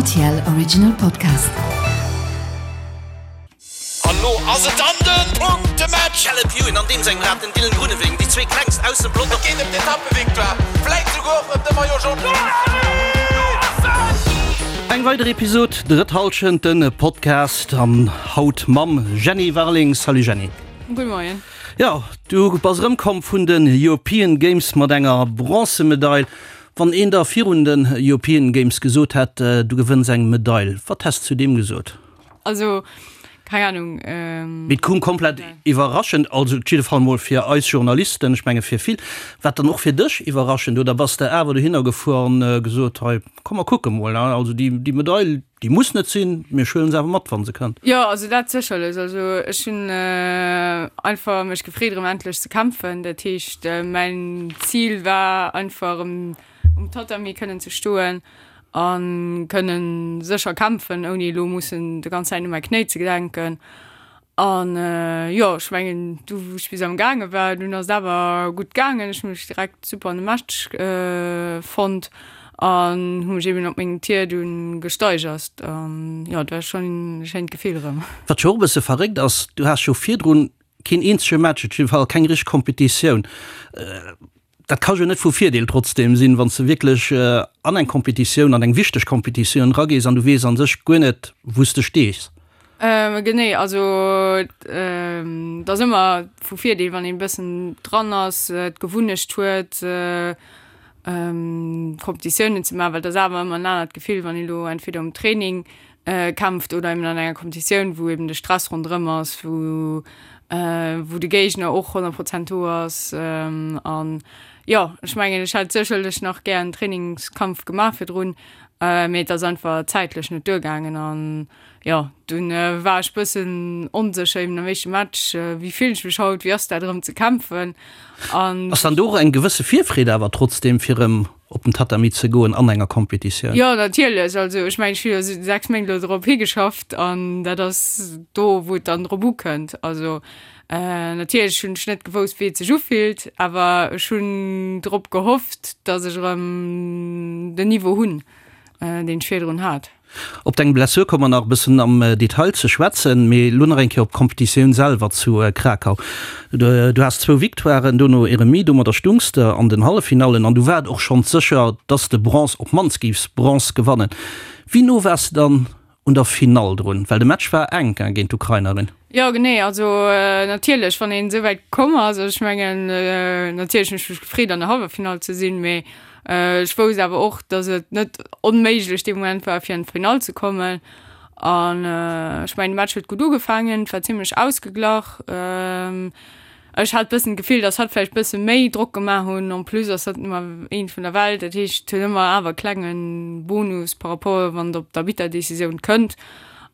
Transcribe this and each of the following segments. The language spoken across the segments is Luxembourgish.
RTL Original Podcast. An lo ass et dann den Punktematch! Caleb Ewan an deem sengem Rad, den Dylan Groenewegen, déi zwee klengst aus dem Pelotong. Et geet ëm d'Etappevictoire, vläit souguer och ëm de Maillot Jaune. Eng weider Episod Drëtt Hallschent, de Podcast an haut mam Jenny Warling. Salut Jenny. Gudde Moien. Jo, du bass erëmkomm vun den European Games mat enger Bronzemedail. Wann een der virun den European Games gesot hätt, du gewënns eng Medail, wat häss zu deem gesot? Also, keng Ahnung. Mee et koum komplett iwwerraschend, also op jidde Fall mol fir eis Journalisten, ech menge fir vill. War et dann och fir dech iwwerraschend oder bass de awer dohinner gefuer an gesot, hei komm mer kucke mol, also déi Medail, Déi muss net sinn, mee ech huelen se awer mat, wa se kënnt. Jo, also dat sécherlech. Also ech hunn einfach mech gefreet erëm endlech ze kämpfen. Dat heescht mäin Zil war einfach erëm um Tatami kënnen ze stoen a kënnen sécher kämpfen, ouni elo mussen de ganz Zäit u mäi Knéi ze denken. An jo, ech mengen du wou ech bis am gaange war, dunn ass et awer gutt gaangen. Ech hu mech direkt super an de Match fonnt an hu mech eben op mengem Tier dunn gesteigert. An jo, et war schonn e schéint Gefill erëm. Wat jo och e bësse verréckt ass, du has jo virdrun keen eenzege Match, op jidde Fall keng richteg Kompetitioun. Dat ka jo net vu Virdeel trotzdeem sinn, wann s de wierklech an eng Kompetitioun, an eng wichteg Kompetitioun eragees an du weess a sech guer net, wou s de stees. Genee, also et ass ëmmer vu Virdeel, wann een e bëssen dran ass, d'Gewunnecht huet, Kompetitiounen ze maachen, well et ass awer ëmmer en anert Gefill, wann een elo entweder um Training kämpft oder eben an enger Kompetitioun, wou eben de Stress ronderëm ass, wou wou de Géigner och 100 Prozent do ass. An jo, ech mengen, ech hätt sécherlech nach gär en Trainingskampf gemaach virdrun, mee et ass einfach zäitlech net duergaangen. An jo, dunn war ech bëssen onsécher eben am éischte Match, wéi fillen ech mech haut, wéi ass dat erëm ze kämpfen? An. Ass dann do och eng gewësse Virfreed awer trotzdeem fir erëm op den Tatami ze goen an enger Competitioun? Jo, natierlech. Also ech mengen, ech hu jo 6 Méint elo drop higeschafft an dat ass do, wou et dann drop ukënnt. Also natierlech hunn ech net gewousst, wéi et sech ufillt, awer ech hunn drop gehofft, datt ech erëm den Niveau hunn, deen ech virdrun hat. Op deng Blessur komme mer nach e bëssen am Detail ze schwätzen, mee elo nach eng Kéier op d'Competitioun selwer zu Krakau. Du has zwou Victoiren, dono e Remis, domadder stungs de an den Halleffinallen an du war et och schonns sécher, dass de Bronze, op d'mannst géifs Bronze gewannen. Wéi no waars de dann un der Finall drun? Well de Match war enk géint d'Ukrainerin. Jo genee, also natierlech wann een esou wäit komm ass, also ech mengen natierlech hunn ech mech gefreet an der Halleffinall ze sinn, mee ech wousst awer och, datt et net onméiglech dee Moment war fir an d'Finall ze kommen an ech mengen de Match huet gutt ugefaangen, et war zimmlech ausgeglach. Ech hat bëssen d'Gefill, datt hatt vläicht bësse méi Drock gemaach hunn. En plus ass hatt Nummer eent vun der Welt, dat heescht huet ëmmer awer e klenge Bonus par rapport wann et op d'Arbitterdecisioun kënnt.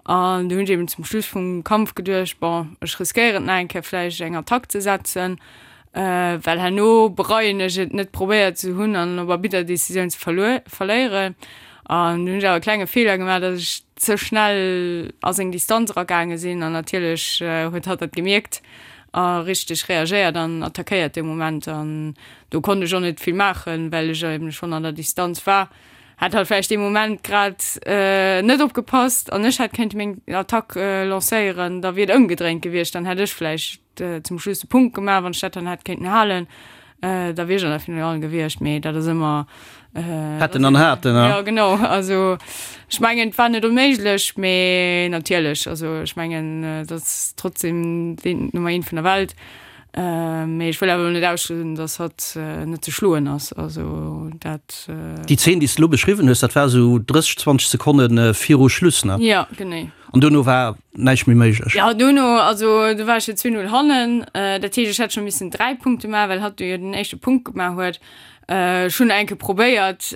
An du hunn ech eben zum Schluss vum Kampf geduecht, bon ech riskéieren et nach eng Kéier vläicht eng Attack ze setzen, well herno bereien ech et net probéiert ze hunn an op Arbitterdecisioun ze verléieren. An du hunn ech awer e klenge Feeler gemaach, datt ech ze schnell a seng Distanz eragaange sinn an natierlech huet hatt dat gemierkt a richteg reagéiert an attackéiert dee Moment an do konnt ech och net vill maachen, well ech eben schonn an der Distanz war. Hat halt vläicht dee Moment grad net opgepasst an ech hätt kéinte meng Attack lancéieren, da wier et ëmgedréint gewiescht, dann hätt ech vläicht zum Schluss de Punkt gemaach, wann ech dat dann hätt kéinten halen, da wier ech an der Finale gewiescht, mee dat ass ëmmer Hätten an haten, ne? Jo, genau. Also ech mengen, et war net onméiglech, mee natierlech, also ech mengen, et ass trotzdem den Nummer eent vun der Welt. Mee ech wëll awer elo net ausschléissen, datt hatt net ze schloen ass. Also dat. Déi Zeen, déi s de elo beschriwwen hues, dat war esou 30, 20 Sekonne viru Schluss, ne? Jo, genee. An duerno war näischt méi méiglech? Jo, duerno, also du war ech jo 2-0 hannen. Dat heescht, ech hätt scho missen 3 Punkte maachen, well hatt jo den éischte Punkt gemaach huet. Ech hunn enke probéiert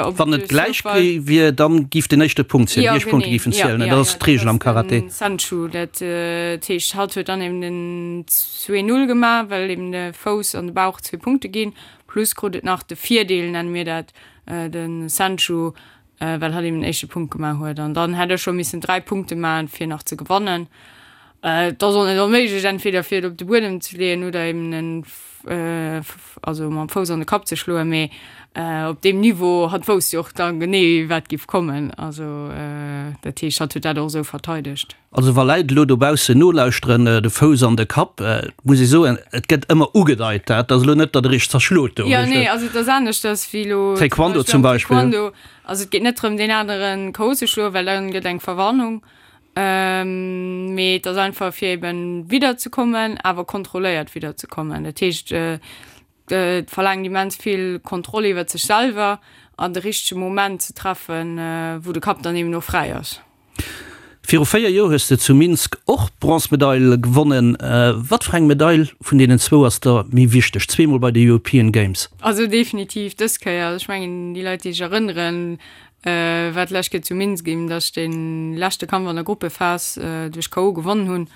op Wann et gläich wier, dann giff den éischte Punkt zielen, déi éischt Punkte giffen zielen. Dat ass d'Reegel am Karate. Sanchu, dat heescht hatt huet dann eben den 2, 0 gemaach, well eben de Fouss an de Bauch zwee Punkte ginn, plus krut et nach de Virdeel, nenne mir dat, de Sanchu, well hatt eben den éischte Punkt gemaach huet. An dann hätt ech scho missen 3 Punkte maachen, fir nach ze gewannen. Et ass och net onméiglech, entweder fir et op de Buedem ze leeën oder eben en, also mam Fouss an de Kapp ze schloen, mee op deem Niveau, hatt wousst jo och da genee, wat giff kommen. Also dat heescht, hatt huet dat och esou verteidegt. Also wa Läit elo dobaussen nolauschteren, de Fouss an de Kapp, muss ee soen, et gëtt ëmmer ugedeit, dat ass elo net, datt e richteg zerschlot do. Jo, nee, also et ass aneschters wéi elo Taekwondo zum Beispill. Taekwondo, also et geet net drëm, deen anere KO ze schloen, well dann gëtt eng Verwarnung, mee et ass einfach fir eben widderzekommen, awer kontrolléiert widderzekommen. Dat heescht, Et verlaangt immens vill Kontroll iwwert sech selwer an de richtege Moment ze treffen, wou de Kapp dann eben och fräi ass. Viru 4 Joer hues de zu Minsk och d'Bronzemedail gewonnen. Wat fir eng Medail vun deenen zwou ass der méi wichteg, zweemol bei de European Games? Also definitiv dës Kéier. Also ech mengen, déi Leit, déi sech erënneren, war d'lescht Kéier zu Minsk eben, datt ech dee leschte Kampf an der Gruppephas duerch KO gewonnen hunn.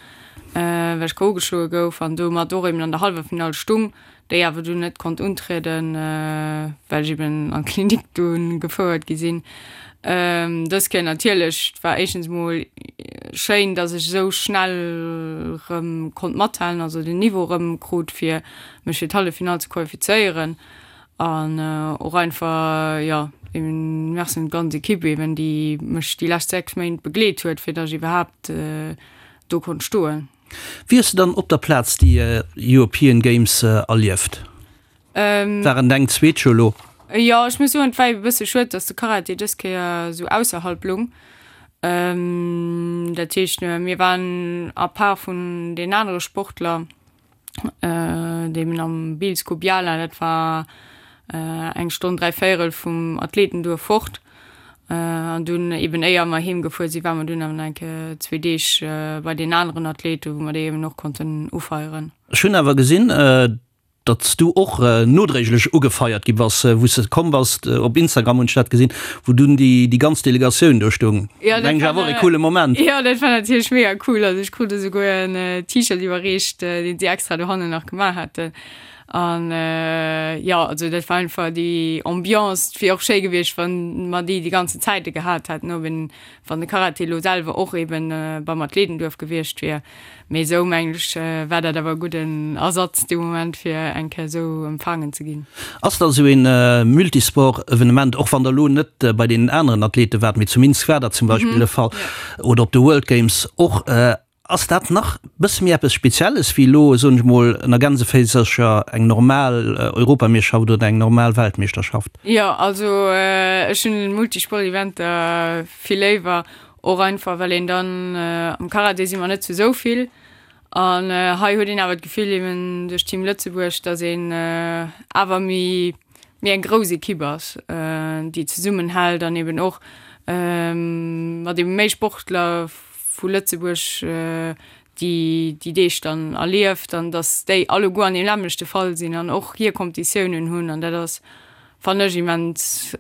well ech KO geschloe gouf an domat och eben an der Halleffinall stung, déi awer dunn net konnt untrieden, well ech eben an d'Klinik dunn gefouert gi sinn. Dës Kéier natierlech, et war éischtens emol schéin, dass ech esou schnell erëm konnt mathalen, also den Niveau erëm krut, fir mech fir d'Halleffinall ze qualifizéieren an och einfach, jo, eben Merci un d'ganz Ekipp eben, déi mech déi lescht 6 Méint begleet huet, fir dass ech iwwerhaapt do konnt stoen. Wéi hues de dann op der Plaz déi European Games erlieft? Waren deng zweet jo elo. Jo, ech muss soen, et war e bësse schued, dass de Karate dës Kéier esou ausserhalb lung. Dat heescht, mir waren à part vun den anere Sportler, Deem am Bielsko Biala, dat war eng Stonn dräivéierel vum Athletenduerf fort. An dunn eben éier mer heem gefuer sinn, ware mer dunn awer nach eng Kéier zwee Deeg bei deenen aneren Athleten, wou mer déi eben och konnten ufeieren. Ech hunn awer gesinn, datt s du och nodréiglech ugefeiert gi bass, wou s de komm bass. Op Instagram hunn ech dat gesinn, wou dunn déi ganz Delegatioun do stoung. Ja, dat Mengen ech war awer och e coole Moment. Jo, dat war natierlech mega cool. Also ech krut esouguer en T-Shirt iwwerreecht, deen si extra dohannen nach gemaach haten. An jo, also dat war einfach déi Ambiance. Et wier och schéi gewiescht, wann mer déi déi ganzen Zäite gehat hätten, ob een, wann de Karate elo selwer och eben beim Athletenduerf gewiescht wier. Mee esou mengen ech war dat awer e gudden Ersatz dee Moment fir eng Kéier esou empfaangen ze ginn. Ass da esou een Multisport-Evenement, och wann der elo net bei deenen aneren Athlete waart, mee zu Minsk war dat zum Beispill de Fall, oder op de World Games och, ass dat nach bësse méi eppes Spezielles wéi elo, soen ech mol ënner Gänseféisercher, eng normal Europameeschterschaft oder eng normal Weltmeeschterschaft? Jo, also ech hunn Multisport-Eventer vill léiwer, Och einfach well een dann, am Karate si mer net zu esou vill an hei huet een awer d'Gefill eben duerch Team Lëtzebuerg, datt een awer méi méi eng grouss Ekipp ass, déi zesummenhält an eben och mat eben méi Sportler vu Lëtzebuerg déi déi Deeg dann erlieft an datt déi alleguer an deem nämmlechte Fall sinn an och hir Kompetitiounen hunn an dat ass Fannen ech immens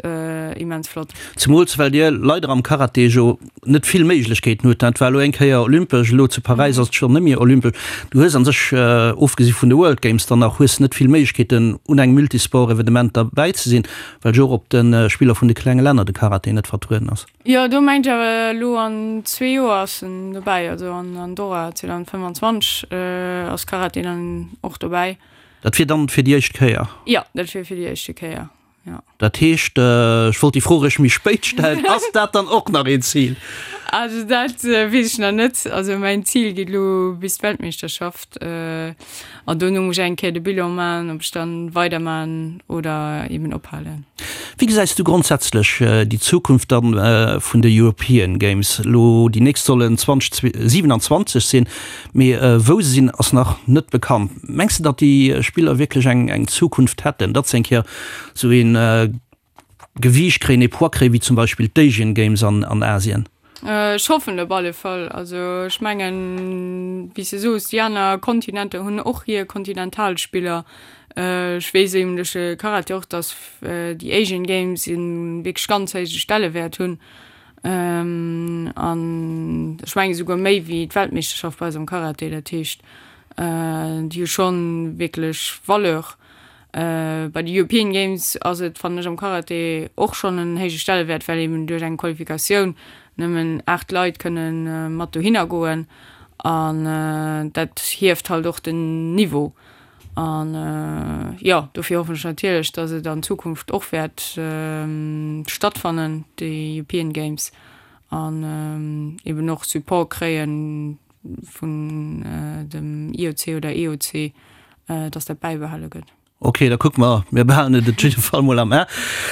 immens flott. Zemools well dir leider am Karate jo net vill Méiglechkeeten hutt. Dat war elo eng Kéier olympesch, elo zu Paräis ass et schonn net méi olympesch. Du hues an sech, ofgesi vun de World Games dann nach, hues net vill Méiglechkeeten un engem Multisport-Evenement derbäi ze sinn, well jo och op de Spiller vun de klenge Länner de Karate net vertrueden ass. Jo, do mengt ech awer elo an zwee Joer ass en dobäi, also an Andorra 2025 ass Karate dann och dobäi. Dat wier dann fir déi éischt Kéier? Jo, dat wier fir déi éischte Kéier, jo. Dat heescht, ech wollt déi Fro eréischt méi spéit stellen, ass dat dann och nach een Zil? Also dat weess ech nach net. Also mäin Zil geet elo bis d'Weltmeeschterschaft an dono muss ech eng Kéier de Bilan maachen, ob ech dann weidermachen oder eben ophalen. Wéi gesäis du grondsätzlech déi Zukunft dann vun de European Games? Elo déi nächst sollen 2027 sinn. Mee wou se sinn, ass nach net bekannt. Mengs de, datt déi Spiller wierklech eng Zukunft hätten, datt se eng Kéier esou ee Gewiicht kréien, ee Poids kréien, wéi zum Beispill d'Asian Games an Asien? Ech hoffen op alle Fall. Also ech mengen, wéi s de soos, déi aner Kontinenter hunn och hir Kontinentalspiller. Ech weess eben duerch de Karate och, datt déi Asian Games e wierklech ganz héije Stellewäert hunn. An ech mengen esouguer méi wéi d'Weltmeeschterschaft bei eis am Karate. Dat heescht, déi hu schonn wierklech Valeur. Bei de European Games ass et, fannen ech, am Karate och schonn en héije Stellewäert, well eben duerch eng Qualifikatioun nëmmen 8 Leit kënne mat dohinner goen. An dat hieft halt och den Niveau. An jo, dofir hoffen ech natierlech, datt et an Zukunft och wäert stattfannen, déi European Games, an eben och Support kréie vun dem IOC oder EOC, datt dat bäibehale gëtt. Ok, da kucke mer. Mir behalen et op jidde Fall mol am A.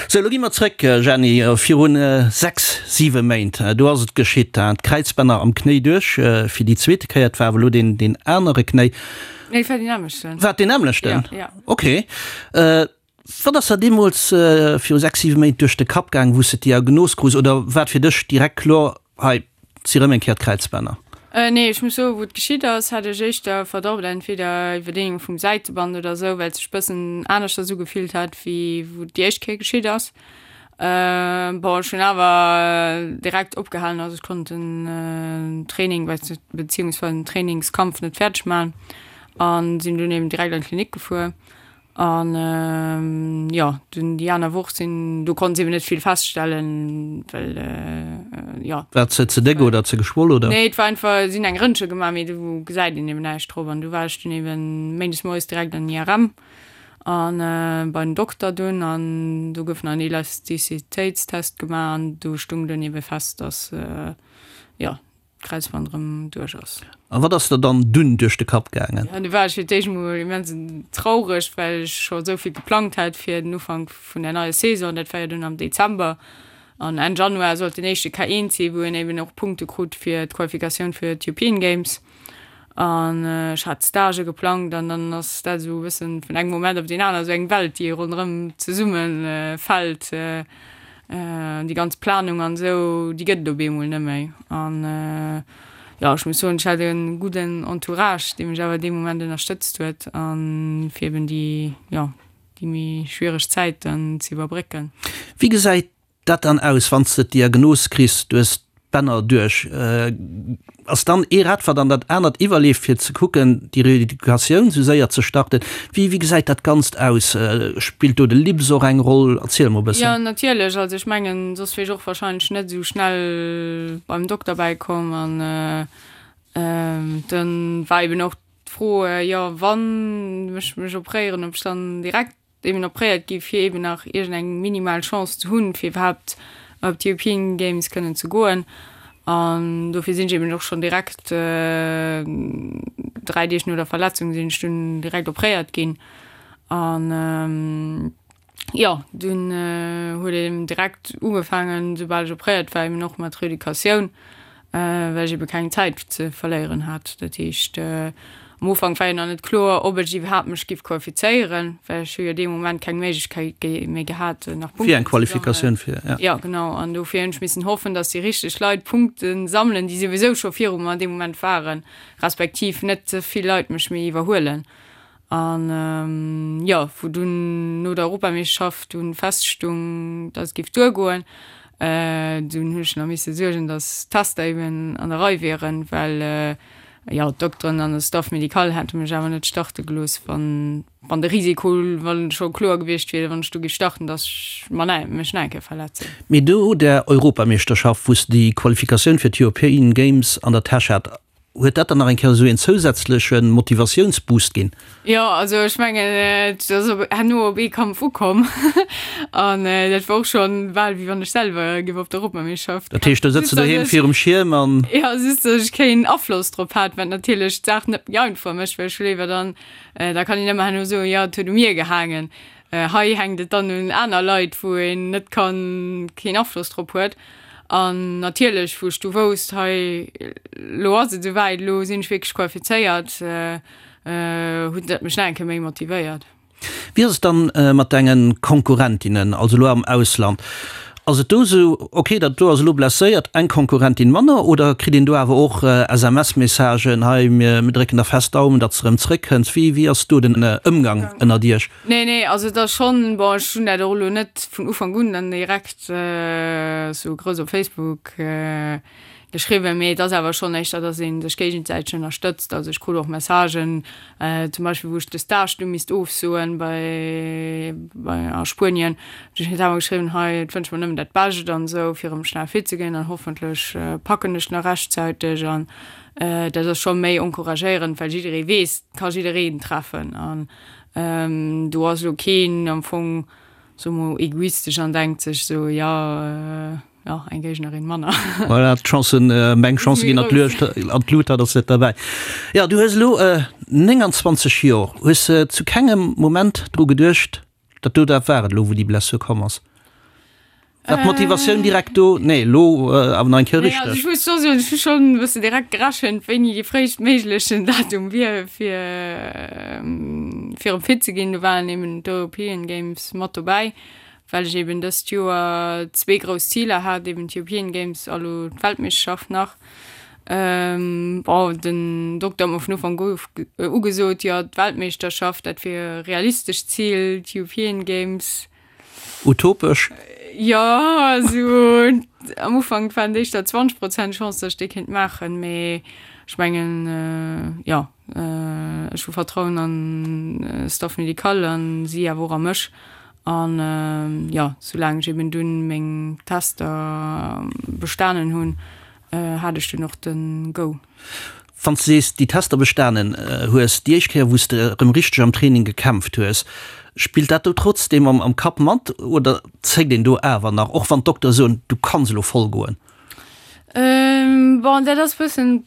Sou, elo gi mer zréck, Jeanny, virun 6, 7 Méint, do ass et geschitt, d'Kräizbänner am Knéi duerch fir déi zweete Kéier. Et war awer elo deen, deen anere Knéi. Nee, et war deen nämmlechten. War et deen nämmlechten? Jo, jo. Ok. Wat ass der deemools viru 6, 7 Méint duerch de Kapp gaang, wou s de d'Diagnos krus, oder war et fir dech direkt kloer, hei, Si rëm eng Kéier d'Kräizbänner? Nee, ech muss soen, wou et geschitt ass, hat ech éischter Verdacht, entweder Iwwerdehnung vum Säiteband oder esou, well et sech bëssen aneschters ugefillt hat, wéi wou et déi éischt Kéier geschitt ass. Bon, ech hunn awer direkt opgehalen, also ech konnt den Training beziehungsweise den Trainingskampf net fäerdeg maachen an sinn dunn eben direkt an d'Klinik gefuer. An jo, dunn déi aner Woch sinn, do konnt se eben net vill feststellen, well jo. War ze ze déck oder ze geschwoll oder? Nee, et war einfach, si hunn eng Rëntge gemaach, mee do gesäit een eben näischt drop. An du war ech dunn eben méindes moies direkt an den IRM an bei den Dokter dunn an do gouf nach en Elastizitéitstest gemaach an do stung dunn eben fest, dass jo, d'Kräizband erëm duerch ass. A wat ass der dann dunn duerch de Kapp gaangen? Jo, du war ech fir d'éischt mol immens traureg, well ech scho esou vill geplangt hat fir den Ufank vun der neier Saison. Dat war jo dunn am Dezember an Enn Januar sollt den éischte K1 sinn, wou een eben och Punkte krut fir d'Qualifikatioun fir d'European Games. An ech hat Stagë geplangt an dann ass dat esou e bëssen vun engem Moment op deen aner esou eng Welt, déi ronderëm zesumme fält. Déi ganz Planung an esou, déi gëtt et op eemol net méi. An jo, ech muss soen, ech hat e gudden Entourage, dee mech awer dee Moment ënnerstëtzt huet a fir eben déi, jo, déi méi schwiereg Zäit dann ze iwwerbrécken. Wéi gesäit dat dann aus, wann s de d'Diagnos kriss, du hues d'Bänner duerch? Ass dann ee Rad, wat an dat anert iwwerleeft, fir ze kucken, déi Reeducatioun esou séier ze starten? Wéi, wéi gesäit dat Ganzt aus? Spillt do de Libs och eng Roll? Erziel mol e bëssen. Jo, natierlech. Also ech mengen, soss wier ech och warscheinlech net esou schnell beim Dokter bäikomm. An dann war eben och d'Fro, jo, wann ech mech opréieren, ob ech dann direkt eben opréiert gi fir eben nach iergend eng minimal Chance ze hunn, fir iwwerhaapt op d'European Games kënnen ze goen. An dofir sinn ech eben och schonn direkt 3 Deeg no der Verletzung sinn ech dunn direkt opréiert ginn. An jo, dunn huet een direkt ugefaangen, soubal ech opréiert war, eben och mat Reeducatioun. well ech ebe keng Zäit ze verléieren hat. Dat heescht, am Ufank war jo nach net kloer, ob ech iwwerhaapt mech giff qualifizéieren, well ech hu jo dee Moment keng Méiglechkeet méi gehat, nach Punkten ze sammeln. Fir eng Qualifikatioun fir, ja. Jo, genau. An dofir hunn ech missen hoffen, datt déi richteg Leit Punkte sammelen, déi souwisou scho viru mer an deem Moment waren, respektiv net ze vill Leit mech méi iwwerhuelen. An jo, wou dunn no der Europameeschterschaft dunn feststung, dass et géif duergoen, dunn hunn ech nach misse suergen, dass d'Tester eben an der Rei wieren, well jo d'Dokteren an de Staff médical hätte mech awer net starte gelooss, wann wann de Risiko, wann scho kloer gewiescht wier, wann ech do géif starten, dass ech mer nach mech nach eng Kéier verletzen. Mee no der Europameeschterschaft, wou s de déi Qualifikatioun fir d'European Games an der Täsch hat, Huet dat dann nach eng Kéier esou een zousätzleche Motivatiounsboost ginn? Jo, also ech mengen, et ass op herno op ee Kampf ukomm an dat war och schonn bal wéi wann ech selwer géif op d'Europameeschterschaft. Dat heescht, do sëtz de doheem virum Schierm an. Jo, just datt ech keen Afloss drop hat, wat natierlech d'Saach net méi einfach mécht, well ech hu léiwer dann, da kann een ëmmer herno soen, jo et huet u mir gehaangen. Hei hänkt et dann un aner Leit, wou een net kann, keen Afloss drop huet. An natierlech, wou ech du wousst, hei lo ass et esouwäit, lo sinn ech wierklech qualifizéiert, huet dat mech nach eng Kéier méi motivéiert. Wéi ass et dann mat denge Konkurrentinnen, also elo am Ausland? Ass et do esou, ok, dat do ass elo blesséiert, eng Konkurrentin manner, oder kritt een do awer och SMS-Messagen, hei mir drécken der fest Daumen, datt s de erëm zréckkënns? Wéi wéi ass do den Ëmgang ënnert iech? Nee, nee, also et ass schonn, bon, ech hunn dat och elo net vun Ufank un dann direkt esou grouss op Facebook geschriwwen, mee et ass awer schonn éischter, datt ee sech géigesäiteg ënnerstëtzt. Also ech krut och Messagen, zum Beispill wou ech de Stage du misst ofsoen bei bei a Spuenien, du huet awer geschriwwen, hei et wënscht mer nëmmen. nëmmen dat Bescht an esou, fir erëm schnell fit ze ginn an hoffentlech packen ech nach rechtzäiteg an dat ass scho méi encouragéierend, well jidderee weess, et ka jiddereen treffen an do ass elo keen am Fong, soe mol, egoistesch an denkt sech esou, jo, jo, eng Géignerin manner. Voilà, d'Chancen, meng Chancë ginn an d'Luecht, an d'Lut, dat ass net derbäi. Jo, du hues elo 29 Joer. Hues de zu kengem Moment dru geduecht, Dat do, dat war et elo, wou déi Blessur komm ass? War d'Motivatioun direkt do? Nee, elo awer nach eng Kéier Nee, also richteg. ech muss scho soen, ech hu schonn e bëssen direkt gerechent, wéini dee fréistméiglechen Datum wier, fir fir erëm fit ze ginn. Do waren eben d'European Games mat dobäi, well ech eben dëst Joer zwee grouss Ziler hat, eben d'European Games a lo d'Weltmeeschterschaft nach. Bon, den Dokter huet mer vun Ufank u ugesot, jo, d'Weltmeeschterschaft, dat wier e realistescht Zil, d'European Games. Utopesch? Jo, also am Ufank waren et éischter 20 Prozent Chance, datt ech déi kéint maachen, mee ech mengen, jo, ech hu Vertrauen an Staff médical an si awer och a mech. An jo, soulaang ech eben dunn meng Tester bestanen hunn, hat ech dunn och de Go. Wann s de sees, déi Tester bestanen hues, déi éischt Kéier wou s de erëm richteg am Training gekämpft hues, spillt dat do trotzdeem am Kapp mat oder zéckt een do awer nach, och wann d'Doktere soen, du kanns elo voll goen? Bon, dat ass bëssen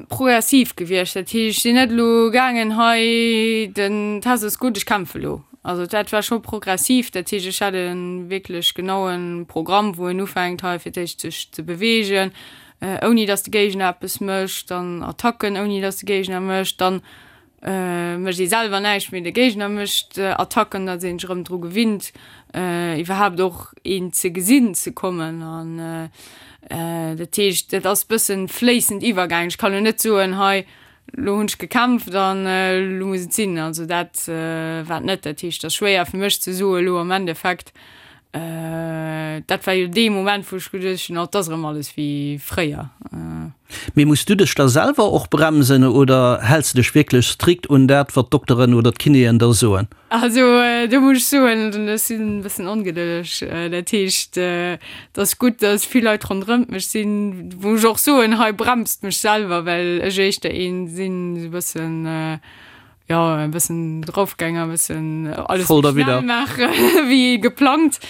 progressiv gewiescht. Dat heescht, ech sinn net elo gaangen, hei den Test ass gutt, ech kämpfe elo. Also dat war scho progressiv. Dat heescht, ech hat e wierklech genaue Programm, wou een ufänkt, hei fir d'éischt sech ze beweegen, ouni datt de Géigner eppes mécht, dann Attacken, ouni datt de Géigner mécht, dann mécht ee selwer näischt, mee de Géigner mécht Attacken, datt ee sech erëm dru gewinnt, iwwerhaapt och een ze gesinn ze kommen. An dat heescht, dat ass bëssen fléissend iwwergaangen. Ech kann elo net soen, hei lo hunn ech gekämpft an elo muss et sinn. Also dat war et net. Dat heescht, et ass schwéier fir mech ze soen elo am Endeffekt, Dat war jo dee Moment, wou ech geduecht hunn, oh, et ass erëm alles wéi fréier. Mee muss du dech da selwer och bremsen oder häls de dech wierklech strikt un dat, wat d'Dokteren oder d'Kinéen der soen? Also do muss ech soen, ech sinn e bëssen ongedëlleg. Dat heescht, et ass gutt, datt vill Leit ronderëmt mech sinn, wou ech och soen, hei bremst mech selwer, well ech éischter een sinn, esou e bëssen, Jo, e bëssen draufgänger, e bëssen alles Voll méi derwidder. schnell maache wéi geplangt.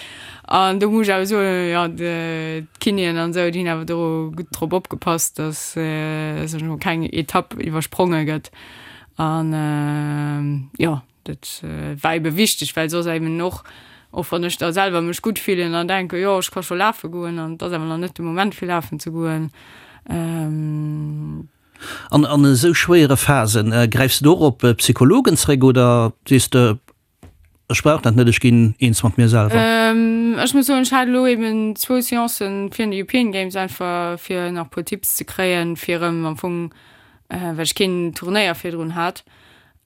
An do muss ech awer soen, jo, d'Kinéen an esou, déi hunn awer do gutt drop opgepasst, datt soen ech mol, keng Etapp iwwerspronge gëtt. An jo, dat war ebe wichteg, well soss eben och, och wann ech da selwer mech gutt fillen an denken, jo, ech ka scho lafe goen an et ass awer nach net de Moment fir lafen ze goen. An an esou schwéiere Phasen, gräifs de do och op Psychologen zréck oder sees de, ech brauch dat net, ech ginn eens mat mir selwer? Ech muss soen, ech hat elo eben zwou Seancen virun de European Games, einfach fir nach e puer Tipps ze kréien, fir erëm am Fong, well ech keen Turnéier virdrun hat.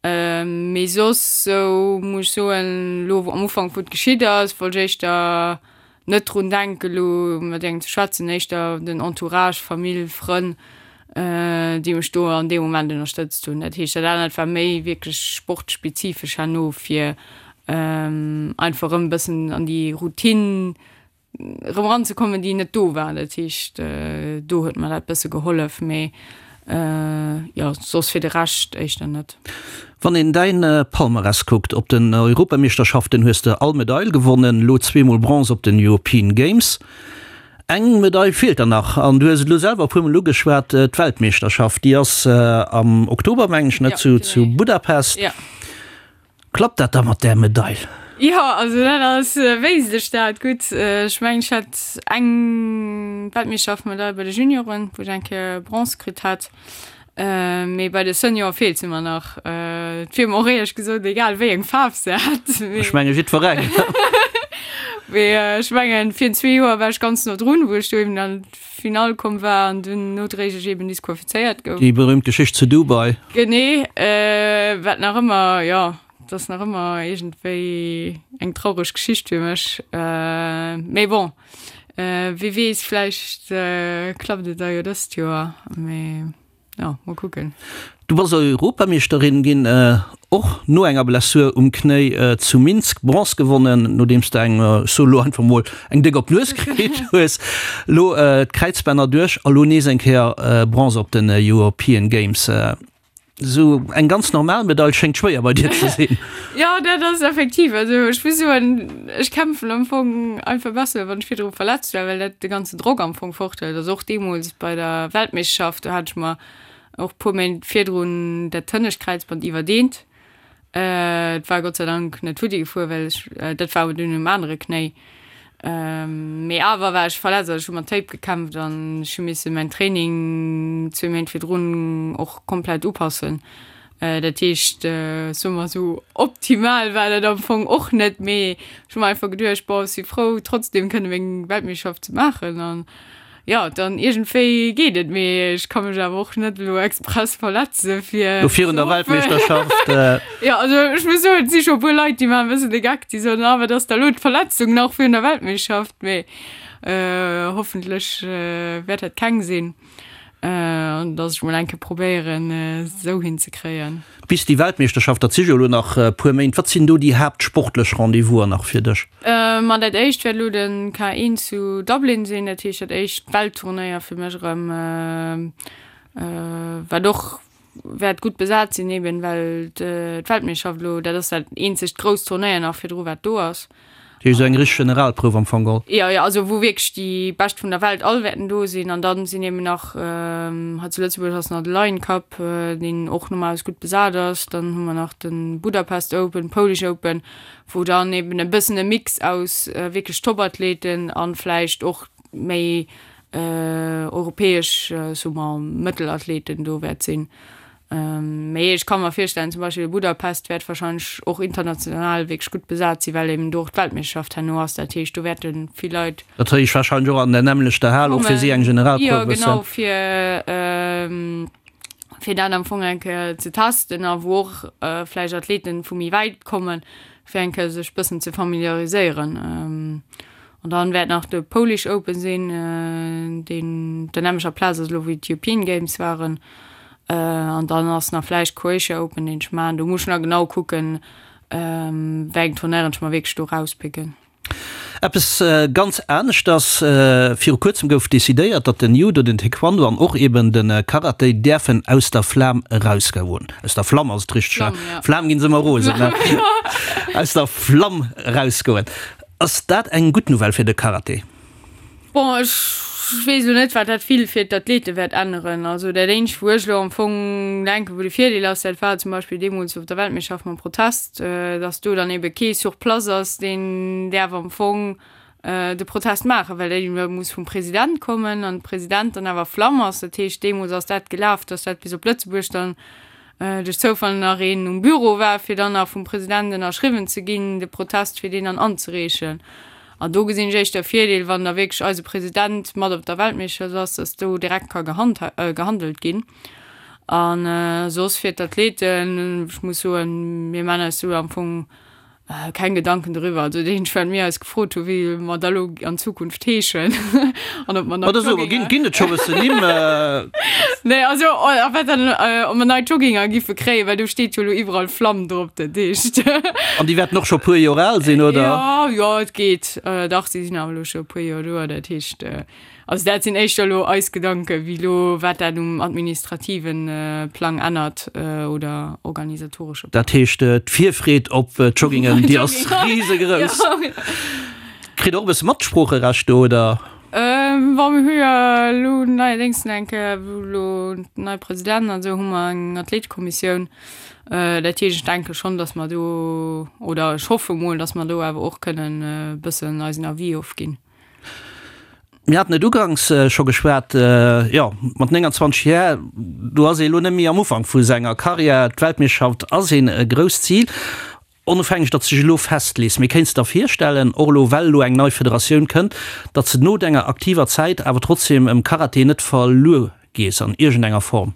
Mee soss esou muss ech soen, elo am Ufank wou et geschitt ass, wollt ech éischter net drun denken elo mat engem ze schwätzen, éischter den Entourage, Famill, Frënn, déi mech do an deem Moment ënnerstëtzt hunn. Dat heescht, dat anert war méi wierklech sportspezifesch herno, fir einfach erëm e bëssen an déi Routine erëm eranzekommen, déi net do war. Dat heescht, do huet mer dat bësse gehollef, mee jo, soss fir de Rescht éischter net. Wann een däin Palmarès kuckt, op den Europameeschterschaften hues de all Medail gewonnen, elo zweemol Bronze op den European Games. Eng Medail feelt der nach an du hues et elo selwer e puermol ugeschwat, d'Weltmeeschterschaft, déi ass am Oktober, mengen ech, ne, zu Budapest. Klappt dat da mat där Medail? Jo, also dat ass, wéisst ech dat gutt. Ech mengen, ech hat eng Weltmeeschterschaftsmedail bei de Junioren, wou ech eng Kéier Bronze kritt hat. Mee bei de Seniore feelt se mer nach. Et wier mer och éierlech gesot egal, wéi eng Faarf se hätt. Ech menge jiddwerengem. Mee ech mengen, virun zwee Joer war ech ganz no drun, wou ech do eben an d'Finall komm war an dunn nodréiglech eben disqualifizéiert gouf. Déi berühmt Geschicht zu Dubai. Genee, wat nach ëmmer, jo, dat ass nach ëmmer iergendwéi eng traureg Geschicht fir mech. Mee bon. Wie weess, vläicht klappt et da jo dëst Joer, mee jo, mol kucken. Du bass Europameeschterin ginn. Och no enger Blessur um Knéi zu Minsk Bronze gewonnen, nodeems de eng, ech soe lo einfach mol, eng déck op d'Nues kritt hues. Lo d'Kräizbänner duerch a lo nees eng Kéier Bronze op den European Games. Esou eng ganz normal Medail schéngt schwéier bei dir ze sinn. Jo, dat ass effektiv. Also ech muss soen, ech kämpfen am Fong einfach besser, wann ech virdru verletzt war, well dat de ganzen Drock am Fong forthëlt. Also och deemools bei der Weltmeeschterschaft, do hat ech mer och puer Méint virdrun dat hënnescht Kräizband iwwerdeent. Et war Gott sei Dank net futti gefuer, well ech, dat war awer dunn um anere Knéi. Mee awer war ech verletzt, also ech hu mat Tape gekämpft an ech hu misse mäin Training zwee Méint virdrun och komplett upassen. Dat heescht, soe mer esou, optimal war dat am Fong och net, mee ech hu mer einfach geduecht, bon, ech si frou trotzdem kënne meng Weltmeeschterschaft ze maachen an Jo, dann iergendwéi geet et, mee ech ka mech awer och net elo express verletze fir Lo virun der Weltmeeschterschaft. Jo, also ech muss soen, et si scho e puer Leit, déi maachen e bëssen de Geck, déi soen, ah wat ass da elo d'Verletzung nach virun der Weltmeeschterschaft, mee hoffentlech wäert dat keng sinn an datt ech mol eng Kéier probéieren esou hinzekréien. Bis déi Weltmeeschterschaft, dat si jo elo nach e puer Méint, wat sinn do déi haaptsportlech Rendez-vousen nach fir dech? Ma dat éischt wäert elo de K1 zu Dublin sinn, dat heescht dat éischt Weltturnéier fir mech erëm, wat och wäert gutt besat sinn, eben well d'Weltmeeschterschaft elo, dat ass dat eenzegt grousst Turnéier nach virdru wat do ass. Dat heescht esou eng richteg Generalprouf am Fong geholl? Jo, jo, also wou wierklech déi Bescht vun der Welt all wäerten do sinn. An dann sinn eben nach, hei zu Lëtzebuerg ass nach de Lion Cup, deen och normalerweis gutt besat ass. Dann hu mer nach de Budapest Open, Polish Open, wou dann eben e bëssen e Mix aus wierklech Topathleten a vläicht och méi europäesch, soe mer, Mëttelathleten do wäert sinn. Mee ech ka mer virstellen, zum Beispill Budapest wäert warscheinlech och international wierklech gutt besat sinn, well eben do och d'Weltmeeschterschaft herno ass. Dat heescht, do wäerte vill Leit. Dat heescht warscheinlech och an der nämmlechter Hal, och fir si eng Generalprouf e bëssen. Jo, genau, fir, fir dat am Fong eng Kéier ze testen a wou och vläicht Athleten vu méi wäit kommen, fir eng Kéier sech bëssen ze familiariséieren. An dann wäert nach de Polish Open sinn, deen op der nämmlecher Plaz ass elo wéi d'European Games waren. An dann ass nach vläicht Croatia Open, deen ech maachen. Do muss ech nach genau kucken, wéi eng Tournairen ech mer wierklech do rauspicken. Eppes ganz aneschters, Viru kuerzem gouf decidéiert, datt den Judo, den Taekwondo an och eben de Karate däerfen aus der Flam erausgoen. Aus der Flamm ass et richteg, ne? Flam ginn se ëmmer rosen, ne? Aus der Flamm erausgoen. Ass dat eng gutt Nouvelle fir de Karate? Bon, ech weess elo net, wat dat vill fir d'Athlete wäert änneren. Also dat eenzegt, wou ech elo am Fong denken, wou de Virdeel ass, dat war zum Beispill deemools op der Weltmeeschterschaft mam Protest, datt do dann ebe kee sur place ass, deen däerf am Fong de Protest maachen, well dat ebe muss vum President kommen an de President dann awer Flamm ass. Dat heescht, deemools ass dat gelaf, datt dat bis op Lëtzebuerg dann duerch Zoufall nach een um Büro war, fir dann nach vum President ënnerschriwwen ze ginn, de Protest, fir deen dann anzereechen. An do gesinn ech éischter e Virdeel, wann da wierklech eise President mat op der Weltmeeschterschaft ass, dass do direkt ka gehandelt ginn. A soss fir d'Athleten, ech muss soen, mir maachen eis do am Fong Keng Gedanken doriwwer. Also dat eenzegt wat mir eis gefrot hu wéi mer da lo an Zukunft heeschen an ob mer nei Oder sou, ginn, ginn et scho bëssen Nimm? Nee, also a wat dann, ob mer nei Jogginger giffe kréien, well do steet jo lo iwwerall Flamm drop, dat heescht. An déi wäerten och scho puer Joer al sinn, oder? Jo, jo, et geet. Dach, si sinn awer lo scho e puer Joer do, dat heescht. Also dat sinn éischter elo eis Gedanken, wéi elo wat dat um administrative Plang ännert oder organisatoresche Plang. Dat heescht, d'Virfreed op d'Joggingen, déi ass risegrouss. Kritt Der och e bësse Matsproocherecht do, oder? Bon, mir hu jo elo neierdéngs eng Kéier, wou elo nei President an esou, hu mer eng Athletekommissioun. Dat heescht, ech denke schonn, datt mer do, oder ech hoffe mol, datt mer do awer och kënnen e bëssen eisen Avis ofginn. Mir haten et uganks scho geschwat, jo, mat 29 Jär, do ass ee elo net méi am Ufank vu senger Karriär. D'Weltmeeschterschaft ass een grousst Zil, onofhängeg datt s de dech elo festlees. Mee kéints de der virstellen, och elo well elo eng nei Federatioun kënnt, datt s de no denger aktiver Zäit awer trotzdeem em Karate net verluer gees an iergendenger Form?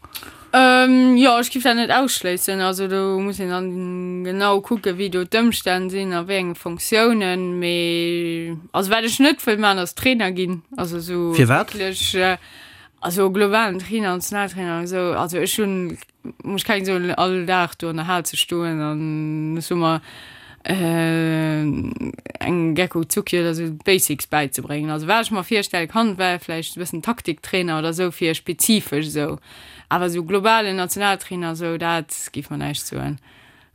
Jo, ech giff dat net ausschléissen. Also do muss een dann genau kucken, wéi do d'Ëmstänn sinn a wéi enge Fonctiounen. Mee also wat ech net wëll maachen, ass Trainer ginn. Also esou Firwat? wierklech, also globalen Trainer, Nationaltrainer an esou. Also ech hunn. Muss keng soen, all Dag do an der Hal ze stoen an ech soe mer engem Gecko Zucki oder sou d'Basics bäizebréngen. Also wat ech mer virstelle kann, wär vläicht e bëssen Taktiktrainer oder sou fir spezifesch esou, awer esou globalen Nationaltrainer esou, dat géif mer näischt soen.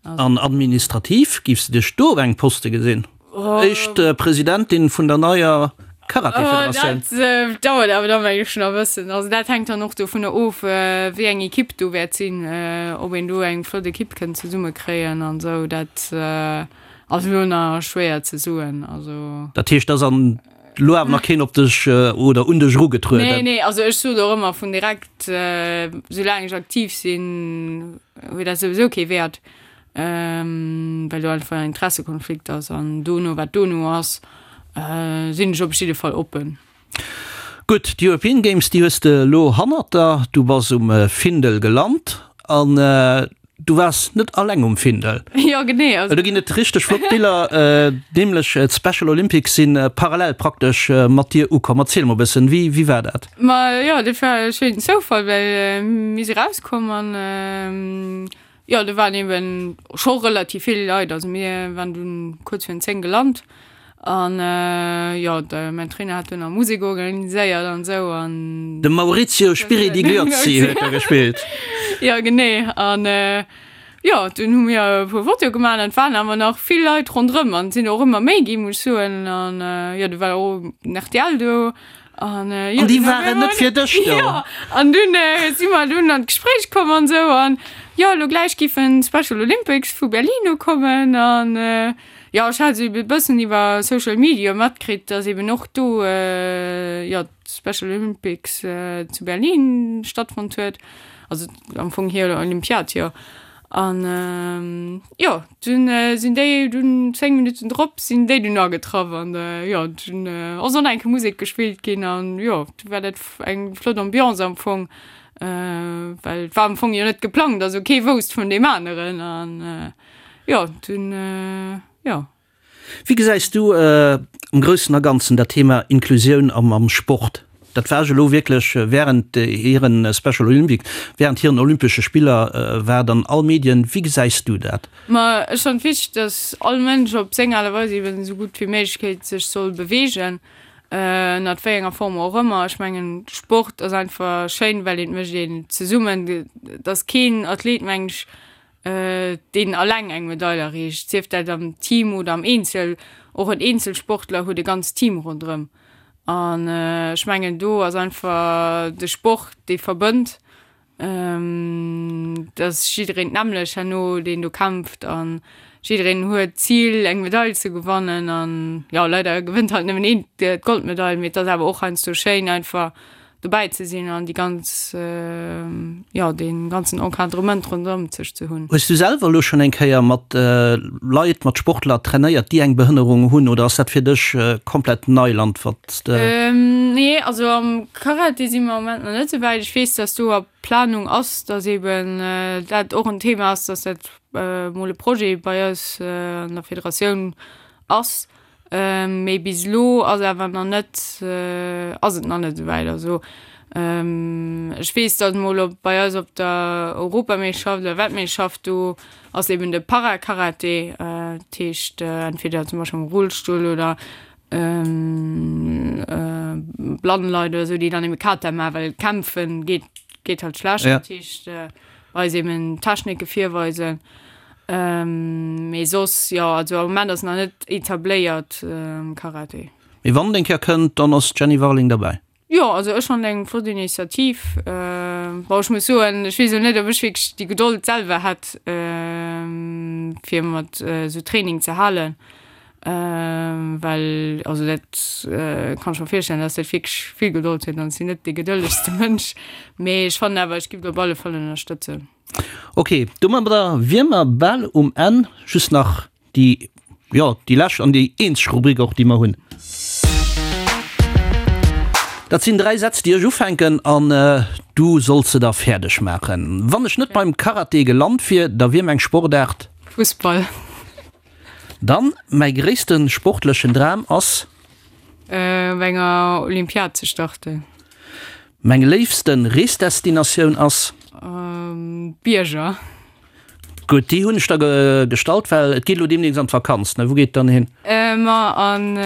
An administrativ, giffs de dech do op engem Poste gesinn? Éischt Presidentin vun der neier Karaté-Federatioun? Dat dauert awer da meng ech nach e bëssen. Also dat hänkt dann och dovunner of, wéi eng Ekipp do wäert sinn, ob een do eng flott Ekipp kënnt zesummekréien an esou. Dat ass elo nach schwéier ze soen. Also. Dat heescht, et ass an elo awer nach keen op dech oder un dech erugetrueden? Nee, nee, also ech sot och ëmmer vun direkt, soulaang ech aktiv sinn, huet dat souwisou kee Wäert, well do einfach en Interessekonflikt ass. An dono, wat dono ass, sinn ech op jidde Fall oppen. Gutt, d'European Games, déi hues de elo hannert der. Du bass um Findel gelant an du waars net alleng um Findel. Jo, genee. Also do ginn et richteg flott Biller, nämlech d'Special Olympics si parallel praktesch mat dir ukomm. Erziel mol e bëssen, wéi, wéi war dat? Ma jo, dat war e schéinen Zoufall, well mir si rauskomm an jo, do waren eben scho relativ vill Leit. Also mir waren dunn kuerz virun 10 gelant an jo, de mäin Trainer hat dunn nach Musek organiséiert an esou an. De Maurizio Spiridigliozzi huet da gespillt. Jo, genee. An jo, dunn hu mir e puer Fotoe gemaach an et waren awer nach vill Leit ronderëm an et sinn och ëmmer méi ginn, muss ech soen. An jo, du war och den rtl do. An, äh, jo, an déi waren net fir dech do. Ja, an dunn äh, si mer dunn an d'Gespréich komm an sou an jo, lo gläich giffen d'Special Olympics vu Berlin ukommen an äh, jo, ech hat sou e bëssen iwwer Social Media matkritt, dass eben och do äh, jo, d'Special Olympics äh, zu Berlin stattfonnt huet, also am Fong hir Olympiad, jo. An jo, dunn sinn déi dunn 10 Minutten drop sinn déi dunn agetraff an jo, dunn ass och nach eng Kéier Musek gespillt ginn an jo, du war dat eng flott Ambiance am Fong, well et war am Fong jo net geplangt, also kee wousst vun deem aneren an jo, dunn jo. Wéi gesäis du am Groussen a Ganzen dat Thema Inklusioun am Sport? Dat war ech elo wierklech während hiren Special Olympics, während hiren Olympesche Spiller war et an all Medien. Wéi gesäis du dat? Ma ech fannen et wichteg, datt all Mënsch op seng Aart a Weis eben esou gutt wéi méiglech sech soll beweegen, ënnert wéi enger Form och ëmmer. Ech mengen Sport ass einfach schéin, well et mécht een zesummen. Et ass keen Athlet, mengen ech, deen alleng eng Medail erreecht, sief dat am Team oder am Eenzel. Och en Eenzelsportler huet e ganzt Team ronderëm. An ech mengen, do ass einfach de Sport, dee verbënnt, dass jiddereen d'nämmlecht herno, deen do kämpft an jiddereen huet d'Zil, eng Medail ze gewannen. An jo, leider gewënnt halt nëmmen een d'Goldmedail, mee et ass awer och heiansdo schéin einfach dobäi ze sinn an déi ganz, jo, dee ganzen Encadrement ronderëm sech ze hunn. Hues du selwer elo schonn eng Kéier mat Leit, mat Sportler trainéiert, déi eng Behënnerung hunn, oder ass dat fir dech komplett Neiland, wat s de. Nee, also am Karate si mer am Moment nach net esou wäit. Ech weess, dass do a Planung ass, dass eeben dat och en Thema ass, dass dat mol e Projet bei eis an der Federatioun ass. Mee bis elo ass awer nach net, ass et nach net esouwäit. Also ech weess, datt mol op bei eis op der Europameeschterschaft oder Weltmeeschterschaft do ass eben de Para-Karate, dat heescht entweder zum Beispill am Rullstull oder blann Leit oder esou, déi dann ebe Kata maachen, well kämpfen geet geet halt schlecht. Dat heescht eis eben Technike virweisen. Mee soss, jo, also am Moment ass nach net etabléiert am Karate. Mee wann et eng Kéier kënnt, dann ass d'Jenny Warling derbäi. Jo, also ech fannen eng flott Initiativ. Bon, ech muss soen, ech weess elo net, ob ech wierklech déi Gedold selwer hätt, fir mat esou Training ze halen, well also dat kann ech mer virstellen, dass dat wierklech vill Gedold huet an ech sinn net dee gedëllegste Mënsch. Mee ech fannen awer, ech giff et op alle Fall ënnerstëtzen. Ok, domadder wier mer bal um Enn. Just nach déi, jo, déi lescht an déi eenzeg Rubrik och, déi mer hunn. Dat sinn 3 Sätz, déi ech ufänken an du solls se da fäerdeg maachen. Wann ech net beim Karate gelant wier, da wier meng Sportaart. Fussball. Dann, mäi gréisste sportlechen Dram ass. Op enger Olympiad ze starten. Meng léifste Reesdestinatioun ass. D'Bierger. Gutt, déi hunn ech der gestallt, well et geet elo deemnächst an d'Vakanz, ne? Wou geet et dann hin? Ma an,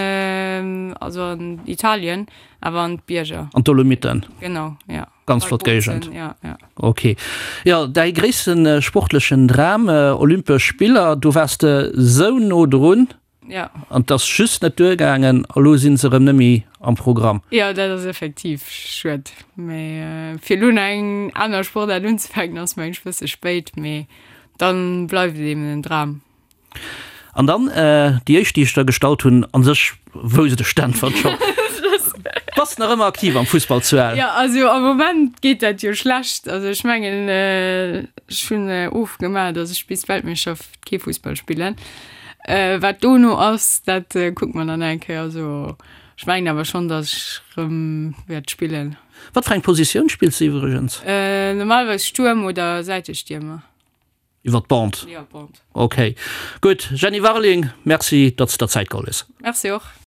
also an Italien, awer an d'Bierger. An d'Dolomiten? Genau, ja. Ganz flott Géigend. Ja, ja. Ok. Jo, däi gréisste sportlechen Dram, Olympesch Spiller, do waars de sou no drun. Ja. An 't ass just net duergaangen a lo sinn se erëm net méi am Programm. Jo, dat ass effektiv schued. Mee fir elo nach eng aner Sportaart unzefänken ass mengen ech e bësse spéit, mee dann bleift et eben en Dram. An dann déi éischt déi ech der gestallt hunn, an sech wousst ech d'Äntwert schonn. Bass nach ëmmer aktiv am Fussball zu Ell? Jo, also am Moment geet dat jo schlecht. Also ech mengen ech hunn ofgemaach, datt ech bis d'Weltmeeschterschaft kee Fussball spillen. Wat dono ass, dat kucke mer dann eng Kéier. Also ech mengen awer schonn, datt ech rëm wäert spillen. Wat fir eng Positioun spills de iwwregens? Normalerweis Stuerm oder Säitestiermer. Iwwer d'Bande? Jo, Bande. Ok, gutt. Jenny Warling, Merci, datt s de der Zäit geholl hues. Merci och.